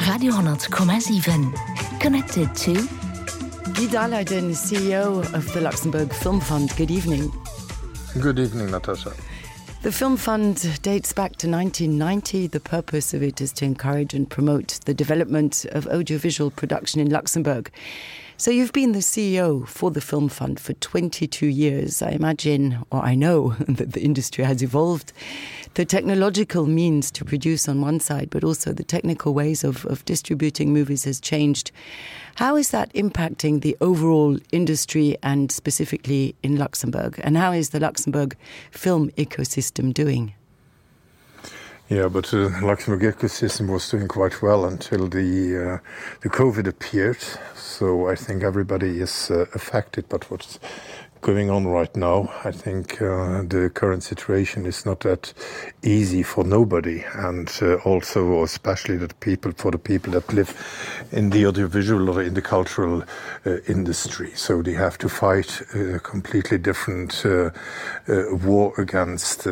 Radio 10,7. Connected to Guy Dahlheiden, CEO of the Luxembourg Film Fund. Good evening. Good evening, Natasha. The Film Fund dates back to 1990. The purpose of it is to encourage and promote the development of audiovisual production in Luxembourg. So you've been the CEO for the Film Fund for 22 years. I imagine, or I know, that the industry has evolved. The technological means to produce on one side, but also the technical ways of distributing movies has changed. How is that impacting the overall industry and specifically in Luxembourg? And how is the Luxembourg film ecosystem doing? Yeah, but the Luxembourg ecosystem was doing quite well until the COVID appeared. So I think everybody is affected. But what's going on right now, I think the current situation is not that easy for nobody, and also especially for the people that live in the audiovisual or in the cultural industry. So they have to fight a completely different war against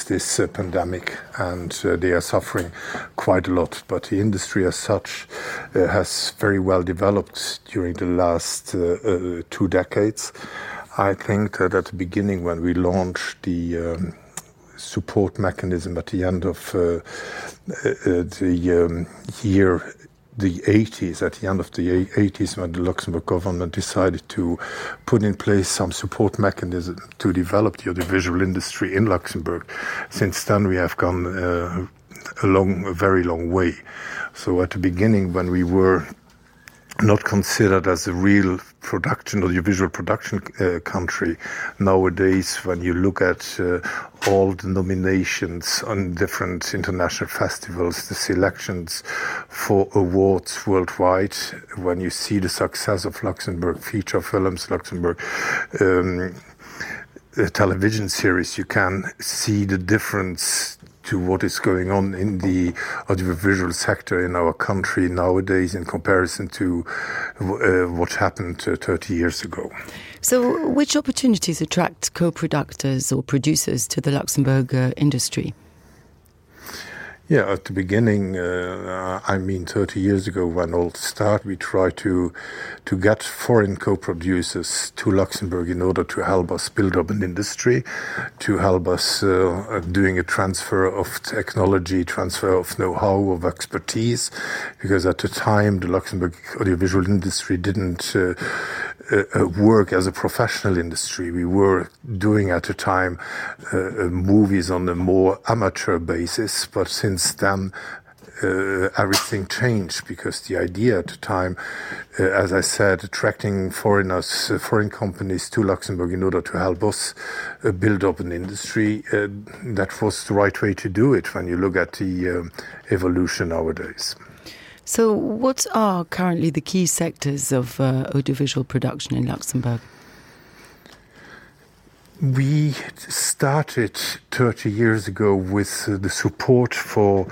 this pandemic, and they are suffering quite a lot. But the industry as such has very well developed during the last 2 decades. I think that at the beginning, when we launched the support mechanism at the end of the 80s, at the end of the 80s, when the Luxembourg government decided to put in place some support mechanism to develop the audiovisual industry in Luxembourg. Since then, we have gone a very long way. So at the beginning, when we were not considered as a real audiovisual production country. Nowadays, when you look at all the nominations on different international festivals, the selections for awards worldwide, when you see the success of Luxembourg feature films, Luxembourg television series, you can see the difference to what is going on in the audiovisual sector in our country nowadays in comparison to what happened 30 years ago. So which opportunities attract co-producers or producers to the Luxembourg industry? Yeah, at the beginning, 30 years ago when all started, we tried to get foreign co-producers to Luxembourg in order to help us build up an industry, to help us doing a transfer of technology, transfer of know-how, of expertise, because at the time the Luxembourg audiovisual industry didn't work as a professional industry. We were doing at the time movies on a more amateur basis, but since then everything changed, because the idea at the time, as I said, attracting foreign companies to Luxembourg in order to help us build up an industry, that was the right way to do it when you look at the evolution nowadays. So what are currently the key sectors of audiovisual production in Luxembourg? We started 30 years ago with the support for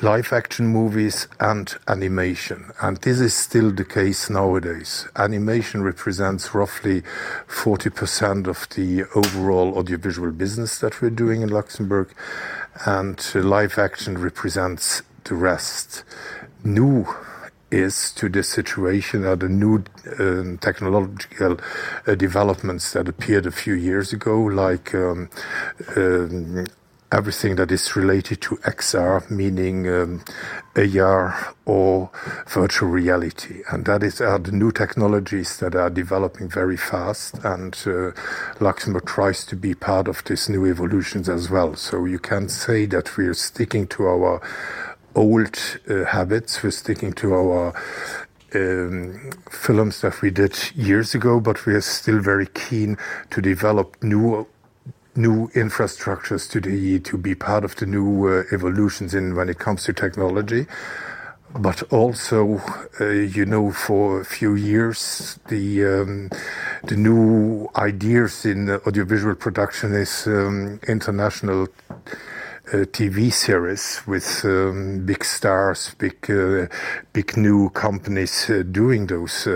live-action movies and animation, and this is still the case nowadays. Animation represents roughly 40% of the overall audiovisual business that we're doing in Luxembourg, and live-action represents the rest. New is to this situation are the new technological developments that appeared a few years ago, like everything that is related to XR, meaning AR or virtual reality. And that are the new technologies that are developing very fast, and Luxembourg tries to be part of these new evolutions as well. So you can say that we're sticking to our old habits, we're sticking to our films that we did years ago, but we are still very keen to develop new infrastructures to be part of the new evolutions when it comes to technology. But also, for a few years, the new ideas in audiovisual production is international TV series with big stars, big new companies doing those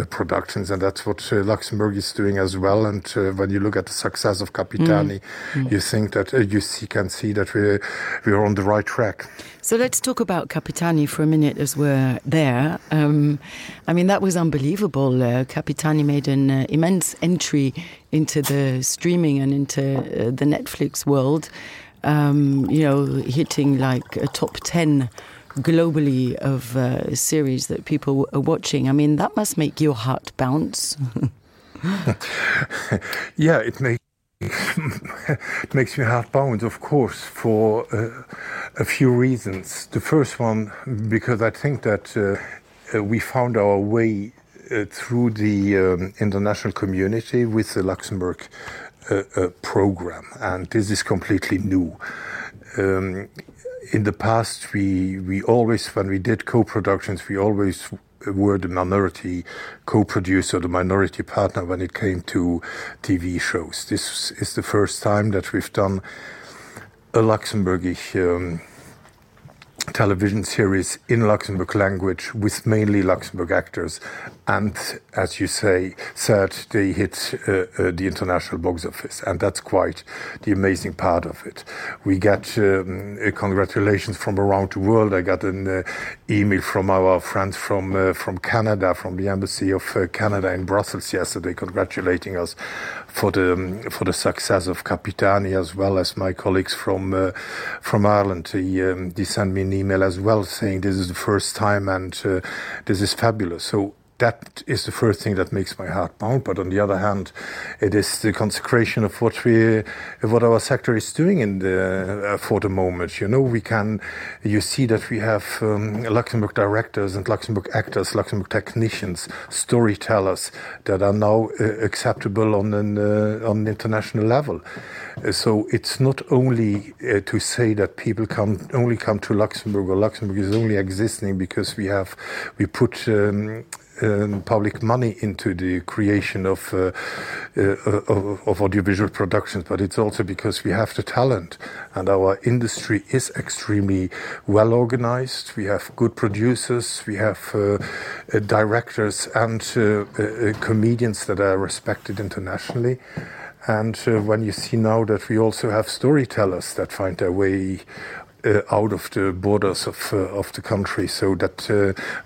productions, and that's what Luxembourg is doing as well. And when you look at the success of Capitani, you think that can see that we're on the right track. So let's talk about Capitani for a minute as we're there. I mean, that was unbelievable. Capitani made an immense entry into the streaming and into the Netflix world, hitting like a top 10 globally of series that people are watching. I mean, that must make your heart bounce. Yeah, it makes me heart bounce, of course, for a few reasons. The first one, because I think that we found our way through the international community with the Luxembourg program, and this is completely new. In the past, we always, when we did co-productions, we always were the minority co-producer, the minority partner when it came to TV shows. This is the first time that we've done a Luxembourgish television series in Luxembourg language with mainly Luxembourg actors, and as you said, they hit the international box office, and that's quite the amazing part of it. We get congratulations from around the world. I got an email from our friends from Canada, from the Embassy of Canada in Brussels yesterday, congratulating us for the success of Capitani, as well as my colleagues from Ireland. They sent me an email as well saying this is the first time and this is fabulous. So that is the first thing that makes my heart pound. But on the other hand, it is the consecration of what our sector is doing for the moment. You see that we have Luxembourg directors and Luxembourg actors, Luxembourg technicians, storytellers that are now acceptable on an international level. So it's not only to say that people only come to Luxembourg, or Luxembourg is only existing because we put public money into the creation of audiovisual productions, but it's also because we have the talent, and our industry is extremely well organized. We have good producers, we have directors and comedians that are respected internationally. And when you see now that we also have storytellers that find their way out of the borders of the country, so that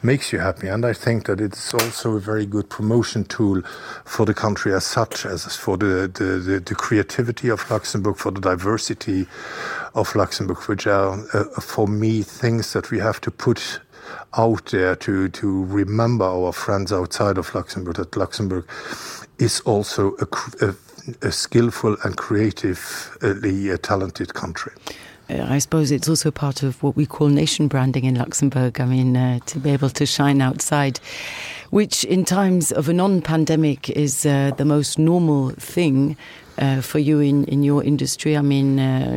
makes you happy. And I think that it's also a very good promotion tool for the country as such, as for the creativity of Luxembourg, for the diversity of Luxembourg, which are, for me, things that we have to put out there to remember our friends outside of Luxembourg, that Luxembourg is also a skillful and creatively talented country. I suppose it's also part of what we call nation branding in Luxembourg. I mean, to be able to shine outside, which in times of a non-pandemic is the most normal thing for you in your industry. I mean,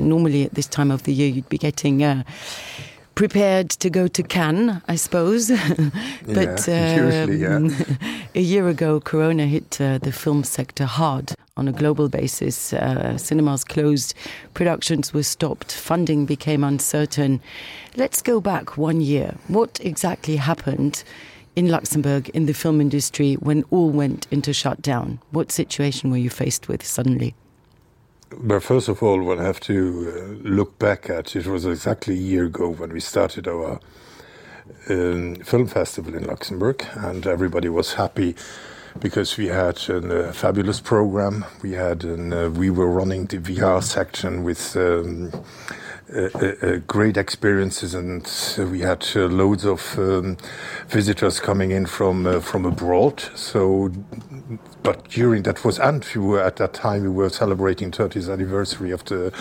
normally at this time of the year, you'd be getting prepared to go to Cannes, I suppose. But usually, yeah. A year ago, Corona hit the film sector hard on a global basis. Cinemas closed, productions were stopped, funding became uncertain. Let's go back 1 year. What exactly happened in Luxembourg in the film industry when all went into shutdown? What situation were you faced with suddenly? But first of all, we'll have to look back at, it was exactly a year ago when we started our film festival in Luxembourg, and everybody was happy because we had a fabulous program. We were running the VR section with great experiences, and we had loads of visitors coming in from abroad. So, but during that was, and at that time we were celebrating 30th anniversary of the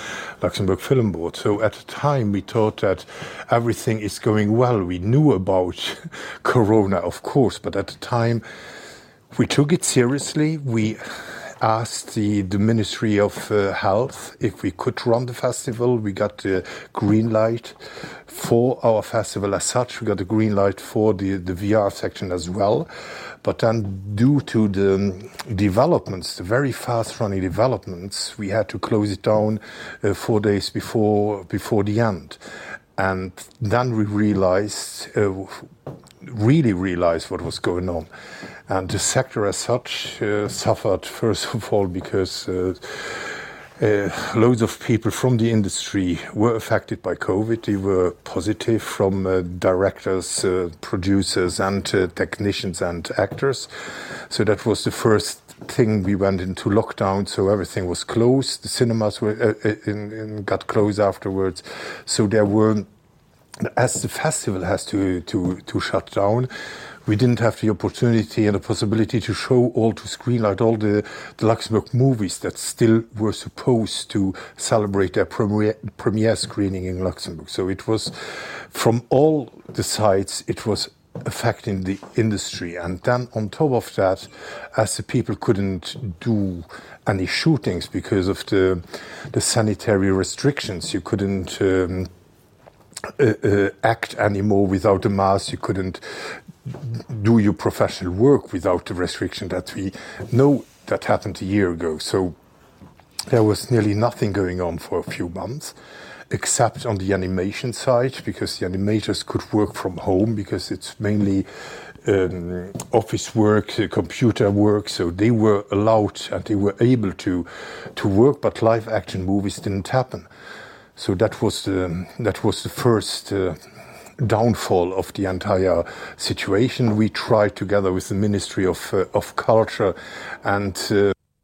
Luxembourg Film Board. So at the time we thought that everything is going well. We knew about Corona, of course, but at the time we took it seriously. asked the Ministry of Health if we could run the festival. We got the green light for our festival as such. We got a green light for the VR section as well. But then due to the developments, the very fast-running developments, we had to close it down 4 days before the end. And then we really realized what was going on. And the sector as such suffered, first of all, because loads of people from the industry were affected by COVID. They were positive, from directors, producers, and technicians and actors. So that was the first thing. We went into lockdown, so everything was closed. The cinemas got closed afterwards. So there were, as the festival has to shut down, we didn't have the opportunity and the possibility to screenlight all the Luxembourg movies that still were supposed to celebrate their premiere screening in Luxembourg. So it was, from all the sides, it was affecting the industry. And then on top of that, as the people couldn't do any shootings because of the sanitary restrictions, you couldn't act anymore without a mask, you couldn't do your professional work without the restriction that we know that happened a year ago. So there was nearly nothing going on for a few months, except on the animation side, because the animators could work from home, because it's mainly office work, computer work, so they were allowed and they were able to work, but live action movies didn't happen. So that was the first downfall of the entire situation. We tried, together with the Ministry of Culture and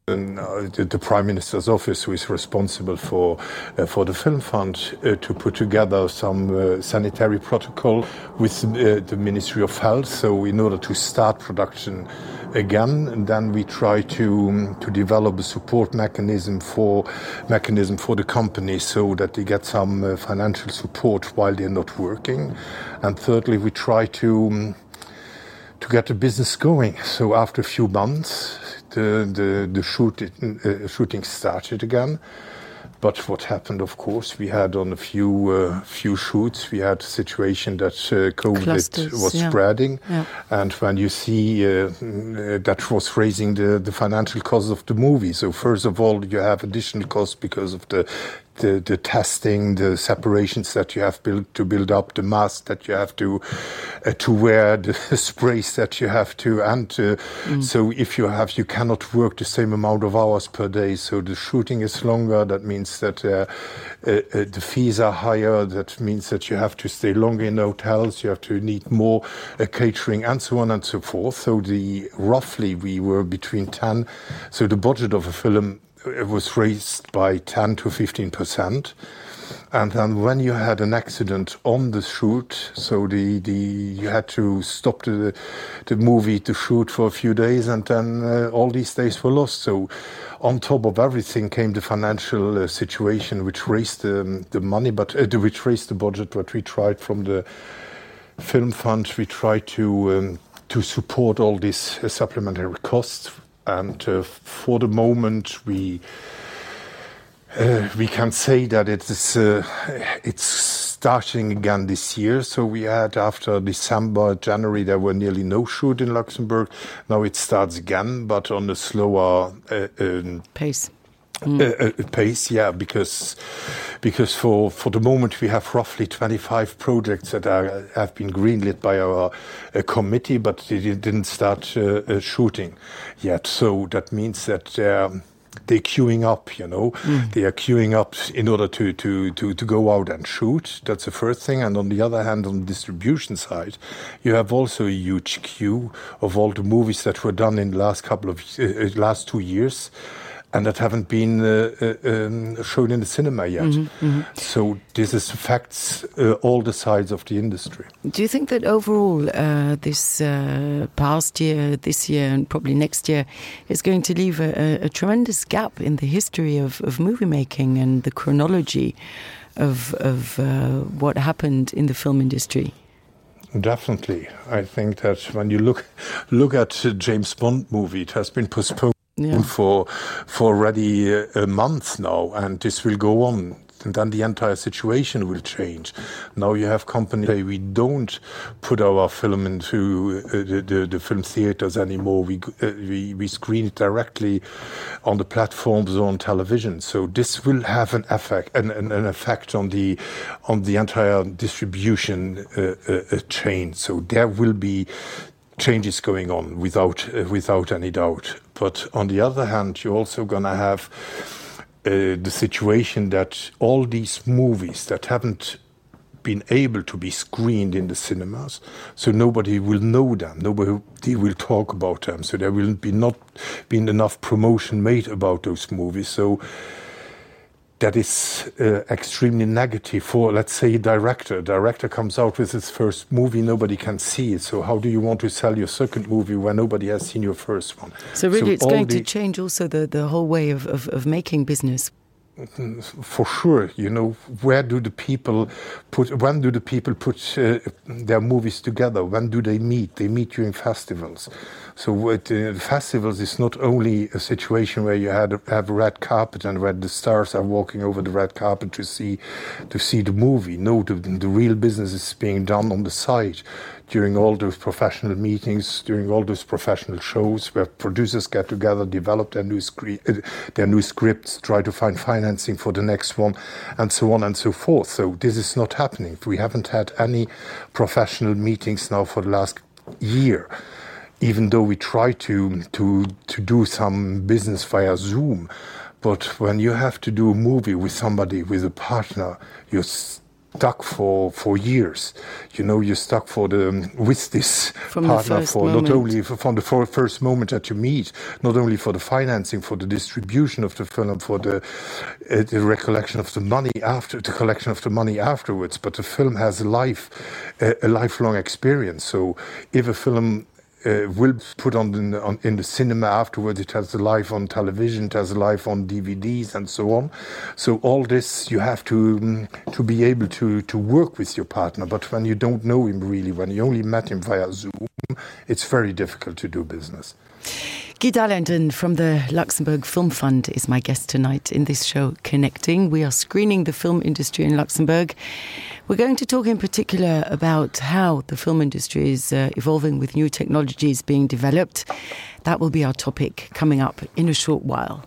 the Prime Minister's office, who is responsible for the Film Fund, to put together some sanitary protocol with the Ministry of Health. So in order to start production again, and then we try to develop a support mechanism for the company, so that they get some financial support while they're not working. And thirdly, we try to get the business going. So after a few months, the shooting started again. But what happened, of course, we had on a few shoots, we had a situation that COVID was spreading. Yeah. And when you see that was raising the financial costs of the movie. So first of all, you have additional costs because of the testing, the separations that you have to build up, the mask that you have to wear, the sprays that you have to, and so if you cannot work the same amount of hours per day. So the shooting is longer. That means that the fees are higher. That means that you have to stay longer in hotels. You have to need more catering, and so on and so forth. So roughly we were between 10. So the budget of a film, it was raised by 10 to 15%. And then when you had an accident on the shoot, so you had to stop the movie to shoot for a few days, and then all these days were lost. So on top of everything came the financial situation, which raised the money, but which raised the budget. But we tried, from the Film Fund, we tried to support all these supplementary costs. And for the moment, we can say that it's starting again this year. So we had, after December, January, there were nearly no shoot in Luxembourg. Now it starts again, but on a slower pace. Pace, yeah, because for the moment we have roughly 25 projects that have been greenlit by our committee, but they didn't start shooting yet. So that means that they're queuing up, They are queuing up in order to go out and shoot. That's the first thing. And on the other hand, on the distribution side, you have also a huge queue of all the movies that were done in the last 2 years, and that haven't been shown in the cinema yet. Mm-hmm, mm-hmm. So this affects all the sides of the industry. Do you think that overall this past year, this year, and probably next year is going to leave a tremendous gap in the history of movie making and the chronology of what happened in the film industry? Definitely. I think that when you look at James Bond movie, it has been postponed for already a month now, and this will go on. And then the entire situation will change. Now you have companies say we don't put our film into the film theaters anymore. We screen it directly on the platforms or on television. So this will have an effect on the entire distribution chain. So there will be changes going on without any doubt. But on the other hand, you're also going to have the situation that all these movies that haven't been able to be screened in the cinemas, so nobody will know them, nobody will talk about them, so there will not be enough promotion made about those movies. So that is extremely negative for, let's say, a director. A director comes out with his first movie, nobody can see it. So how do you want to sell your second movie when nobody has seen your first one? So really it's going to change also the whole way of making business. For sure, when do the people put their movies together? When do they meet? They meet during festivals. So festivals is not only a situation where you have a red carpet and where the stars are walking over the red carpet to see the movie. No, the real business is being done on the side during all those professional meetings, during all those professional shows where producers get together, develop their new scripts, try to find financing for the next one, and so on and so forth. So this is not happening. We haven't had any professional meetings now for the last year, even though we try to do some business via Zoom. But when you have to do a movie with somebody, with a partner, you're stuck for years. You're stuck with this partner not only from the first moment that you meet, not only for the financing, for the distribution of the film, for the recollection of the money the collection of the money afterwards, but the film has a lifelong experience. So if a film will put in the cinema afterwards, it has a life on television, it has a life on DVDs and so on. So all this you have to be able to work with your partner. But when you don't know him really, when you only met him via Zoom, it's very difficult to do business. Guy Dalenden from the Luxembourg Film Fund is my guest tonight in this show, Connecting. We are screening the film industry in Luxembourg. We're going to talk in particular about how the film industry is evolving with new technologies being developed. That will be our topic coming up in a short while.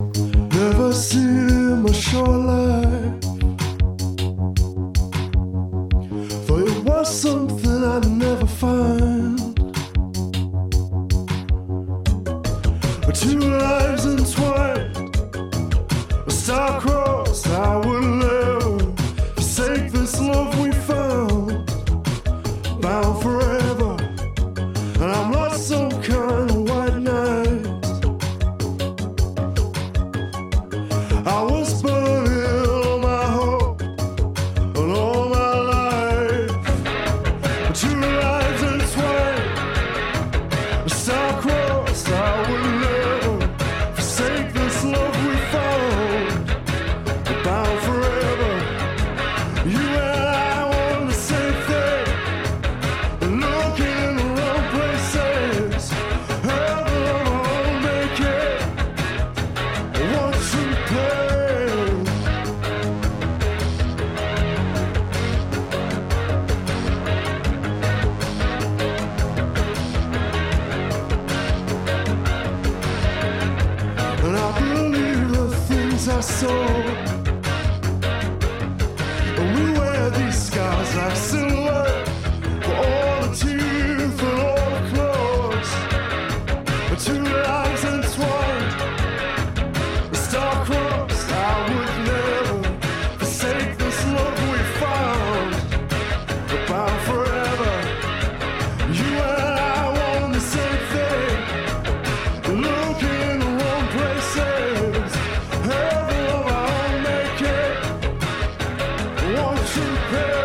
Never seen my shoreline, for it was something I'd never find. Two lives entwined, a star-crossed, I would never forsake this love we found, bound forever, and I'm lost some kind of white night. I was burning all my hope and all my life, two lives entwined, a star-crossed, I would never love we found, bound forever. You and I want the same thing, looking in the wrong places. Have the love make it one true place. And I believe the things I saw, and we wear these scars like silhouette for all the teeth and all the claws. Two lives entwined, a star-crossed, I would never forsake this love we found, bound forever. You and I want the same thing, looking in the wrong places. Have the love I'll make it, won't you pay?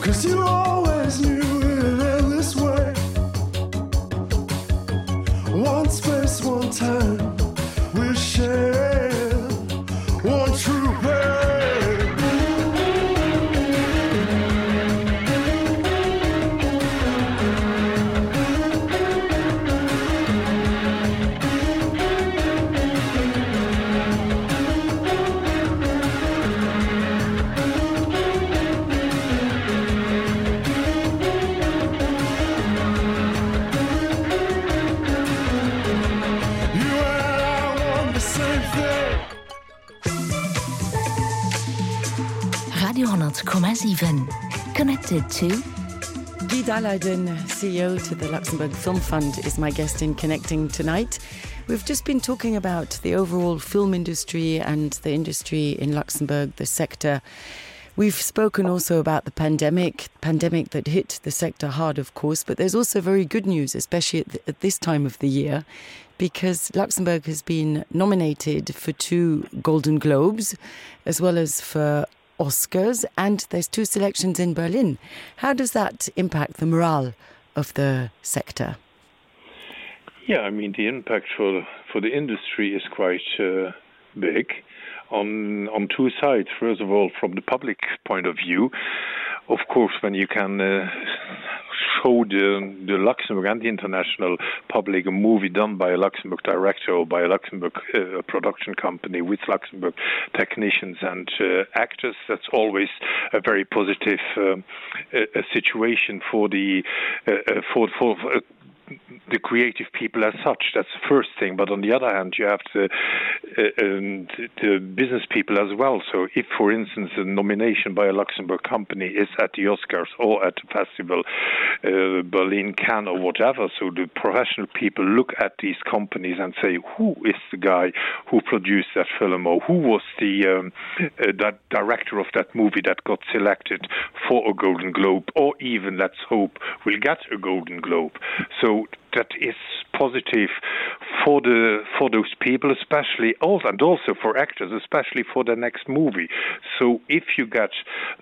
'cause you always knew it in this way. One space, one time, we share one true pain. Radio 100,7. Connected to Guy Dahlheiden, CEO to the Luxembourg Film Fund, is my guest in Connecting tonight. We've just been talking about the overall film industry and the industry in Luxembourg, the sector. We've spoken also about the pandemic that hit the sector hard, of course, but there's also very good news, especially at this time of the year, because Luxembourg has been nominated for 2 Golden Globes, as well as for Oscars, and there's 2 selections in Berlin. How does that impact the morale of the sector? Yeah, I mean, the impact for the industry is quite big on 2 sides. First of all, from the public point of view, of course, when you can show the Luxembourg and the international public a movie done by a Luxembourg director or by a Luxembourg production company with Luxembourg technicians and actors, that's always a very positive situation for the creative people as such. That's the first thing. But on the other hand, you have the business people as well. So if, for instance, a nomination by a Luxembourg company is at the Oscars or at the festival, Berlin, Cannes or whatever, so the professional people look at these companies and say, who is the guy who produced that film, or who was the that director of that movie that got selected for a Golden Globe, or even, let's hope, will get a Golden Globe. So that is positive for those people, especially and also for actors, especially for the next movie. So if you get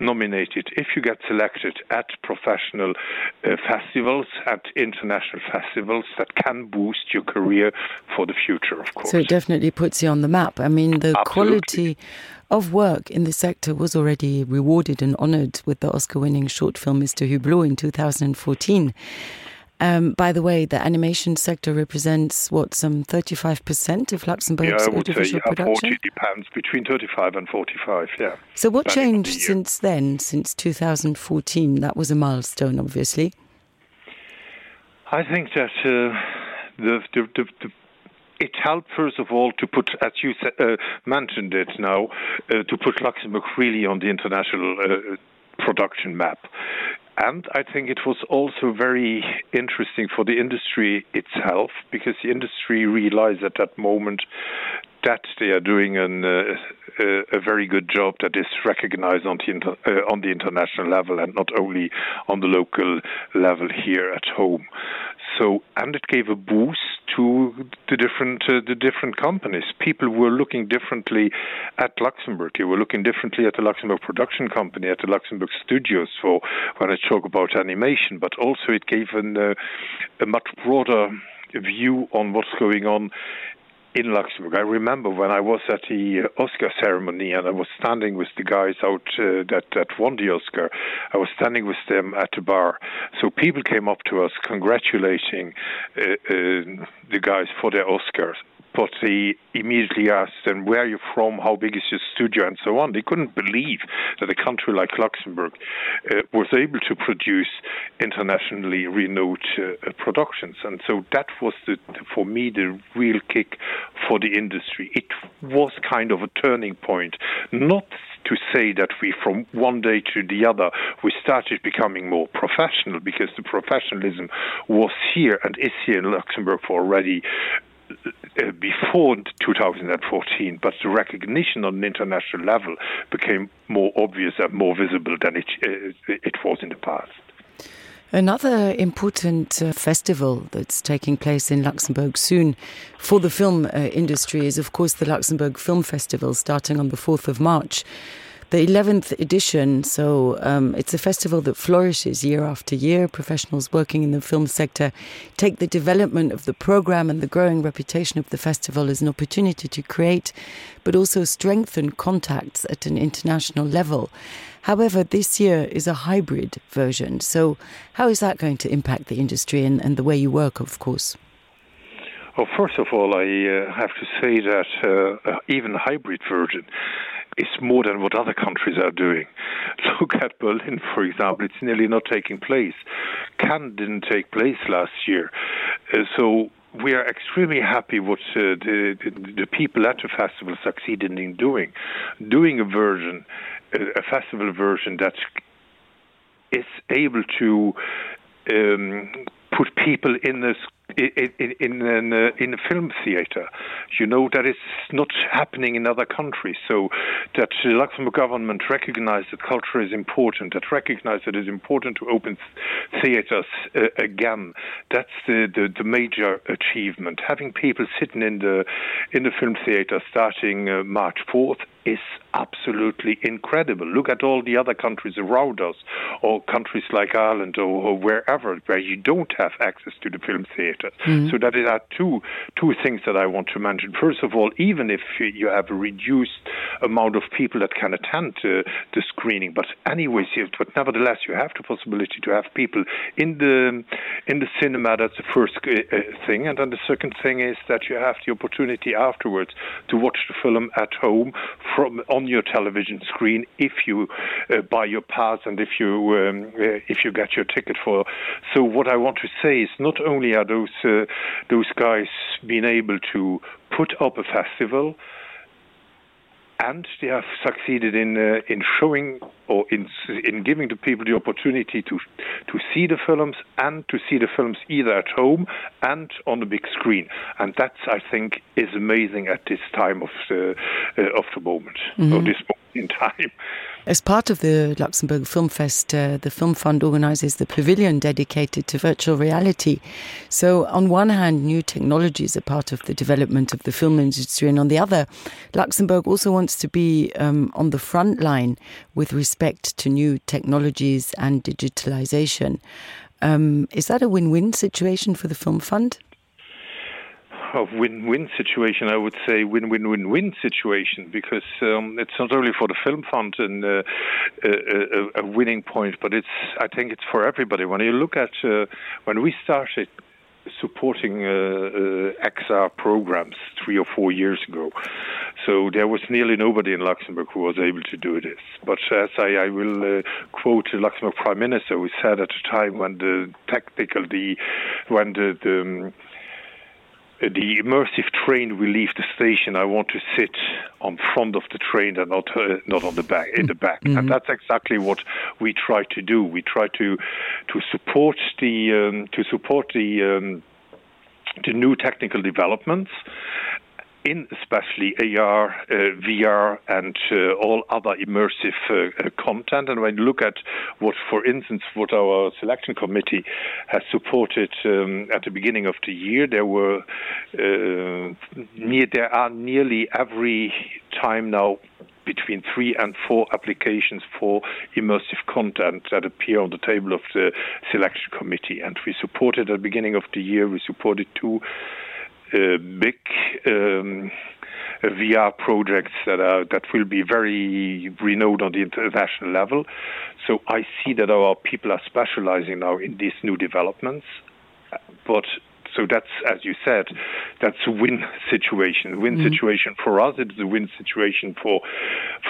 nominated, if you get selected at professional festivals, at international festivals, that can boost your career for the future, of course. So it definitely puts you on the map. I mean, the Absolutely. Quality of work in the sector was already rewarded and honoured with the Oscar-winning short film Mr. Hublot in 2014. By the way, the animation sector represents, some 35% of Luxembourg's audiovisual production? 40 depends, between 35 and 45, yeah. So what changed since then, since 2014? That was a milestone, obviously. I think that it helped, first of all, to put, as you mentioned it now, to put Luxembourg really on the international production map. And I think it was also very interesting for the industry itself, because the industry realized at that moment that they are doing a very good job that is recognized on the international level and not only on the local level here at home. So, and it gave a boost to the different companies. People were looking differently at Luxembourg. They were looking differently at the Luxembourg production company, at the Luxembourg studios, for when I talk about animation. But also it gave a much broader view on what's going on in Luxembourg. I remember when I was at the Oscar ceremony and I was standing with the guys out that won the Oscar. I was standing with them at the bar. So people came up to us congratulating the guys for their Oscars. But they immediately asked them, where are you from, how big is your studio, and so on. They couldn't believe that a country like Luxembourg was able to produce internationally renowned productions. And so that was, for me, the real kick for the industry. It was kind of a turning point, not to say that we, from one day to the other, we started becoming more professional, because the professionalism was here and is here in Luxembourg for already before 2014, but the recognition on an international level became more obvious and more visible than it was in the past. Another important festival that's taking place in Luxembourg soon for the film industry is, of course, the Luxembourg Film Festival, starting on the 4th of March. the 11th edition. So it's a festival that flourishes year after year. Professionals working in the film sector take the development of the program and the growing reputation of the festival as an opportunity to create, but also strengthen contacts at an international level. However, this year is a hybrid version. So how is that going to impact the industry and the way you work, of course? Well, first of all, I have to say that even a hybrid version is more than what other countries are doing. Look at Berlin, for example. It's nearly not taking place. Cannes didn't take place last year. So we are extremely happy what the people at the festival succeeded in doing a version, a festival version that is able to put people in a film theater. You know, that is not happening in other countries. So that the Luxembourg government recognized that culture is important, that recognized that it is important to open theaters again. That's the major achievement. Having people sitting in the film theater starting March 4th is absolutely incredible. Look at all the other countries around us, or countries like Ireland or wherever, where you don't have access to the film theater. Mm-hmm. So that are two things that I want to mention. First of all, even if you have a reduced amount of people that can attend the screening, but anyways, but nevertheless, you have the possibility to have people in the cinema. That's the first thing, and then the second thing is that you have the opportunity afterwards to watch the film at home on your television screen if you buy your pass and if you get your ticket for. So what I want to say is not only are those guys being able to put up a festival, and they have succeeded in showing or in giving the people the opportunity to see the films and to see the films either at home and on the big screen. And that, I think, is amazing at this time of the moment, or this moment in time. As part of the Luxembourg Film Fest, the Film Fund organizes the pavilion dedicated to virtual reality. So on one hand, new technologies are part of the development of the film industry, and on the other, Luxembourg also wants to be on the front line with respect to new technologies and digitalization. Is that a win-win situation for the Film Fund? A win-win situation, I would say win-win-win-win situation, because it's not only for the Film Fund and a winning point, but I think it's for everybody. When you look at when we started supporting XR programs 3 or 4 years ago, so there was nearly nobody in Luxembourg who was able to do this. But as I will quote the Luxembourg Prime Minister, who said at the time when the immersive train will leave the station, I want to sit on front of the train and not on the back, in the back. Mm-hmm. And that's exactly what we try to do. We try to support the new technical developments in especially AR, VR, and all other immersive content. And when you look at what, for instance, what our selection committee has supported at the beginning of the year, there are nearly every time now between 3 and 4 applications for immersive content that appear on the table of the selection committee. And we supported at the beginning of the year, we supported 2 big VR projects that will be very renowned on the international level. So I see that our people are specializing now in these new developments. But so that's, as you said, that's a win situation. Situation for us. It's a win situation for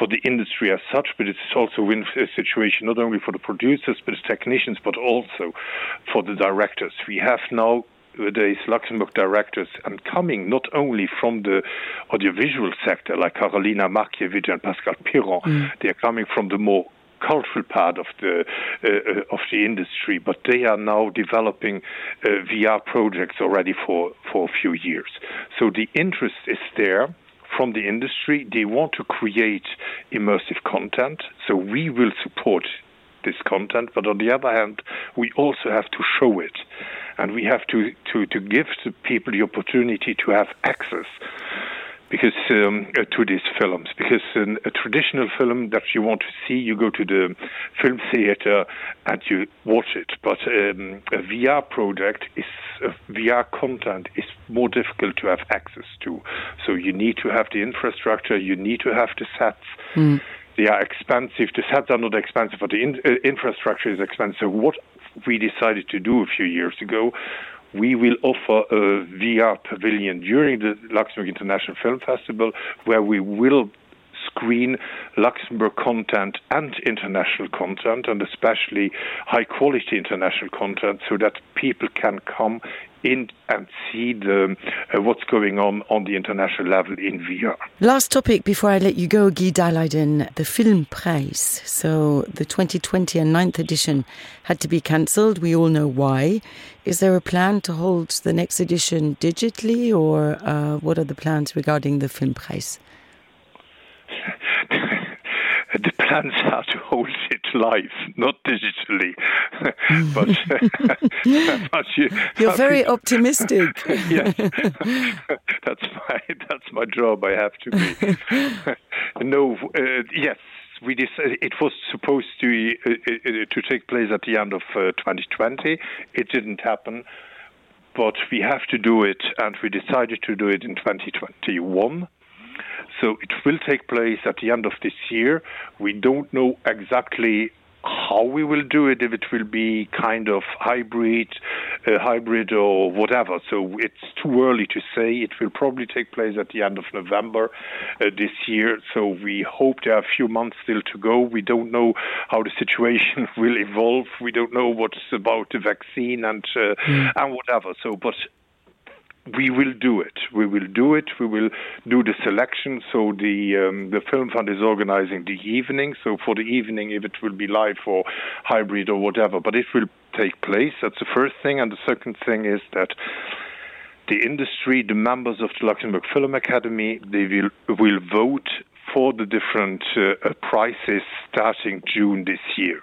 the industry as such, but it's also a win situation not only for the producers, but the technicians, but also for the directors. We have now nowadays Luxembourg directors, and coming not only from the audiovisual sector like Karolina Markiewicz and Pascal Piron, they are coming from the more cultural part of the industry, but they are now developing VR projects already for a few years. So the interest is there from the industry. They want to create immersive content, so we will support this content, but on the other hand, we also have to show it, and we have to give the people the opportunity to have access because to these films, because a traditional film that you want to see, you go to the film theater and you watch it. But a VR project VR content is more difficult to have access to. So you need to have the infrastructure, you need to have the sets. They are expensive. The sets are not expensive, but the infrastructure is expensive. What we decided to do a few years ago, we will offer a VR pavilion during the Luxembourg International Film Festival, where we will screen Luxembourg content and international content, and especially high-quality international content, so that people can come in and see what's going on the international level in VR. Last topic before I let you go, Guy Dahlheiden, the Filmpreis. So the 2020 and 9th edition had to be cancelled. We all know why. Is there a plan to hold the next edition digitally, or what are the plans regarding the Filmpreis? The plans are to hold it live, not digitally. but you're very optimistic. Yes, that's my job. I have to be. Yes. We decided it was supposed to take place at the end of 2020. It didn't happen, but we have to do it, and we decided to do it in 2021. So it will take place at the end of this year. We don't know exactly how we will do it, if it will be kind of hybrid or whatever. So it's too early to say. It will probably take place at the end of November this year. So we hope there are a few months still to go. We don't know how the situation will evolve. We don't know what's about the vaccine and whatever. So, but we will do it. We will do it. We will do the selection. So the Film Fund is organizing the evening. So for the evening, if it will be live or hybrid or whatever, but it will take place. That's the first thing. And the second thing is that the industry, the members of the Luxembourg Film Academy, they will vote for the different prizes starting June this year.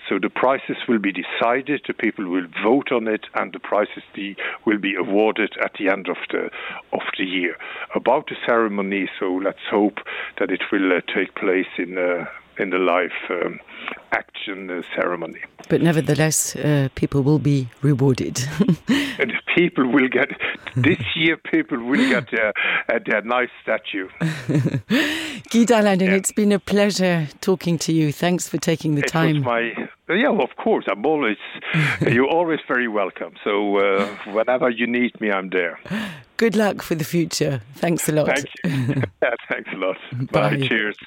So the prizes will be decided, the people will vote on it, and the prizes will be awarded at the end of the year. About the ceremony, so let's hope that it will take place in the live action ceremony. But nevertheless, people will be rewarded. And people will get, this year people will get their nice statue. Guy Dahlheiden, it's been a pleasure talking to you. Thanks for taking the time. Of course. You're always very welcome. So whenever you need me, I'm there. Good luck for the future. Thanks a lot. Thank you. Thanks a lot. Bye. Bye. Cheers.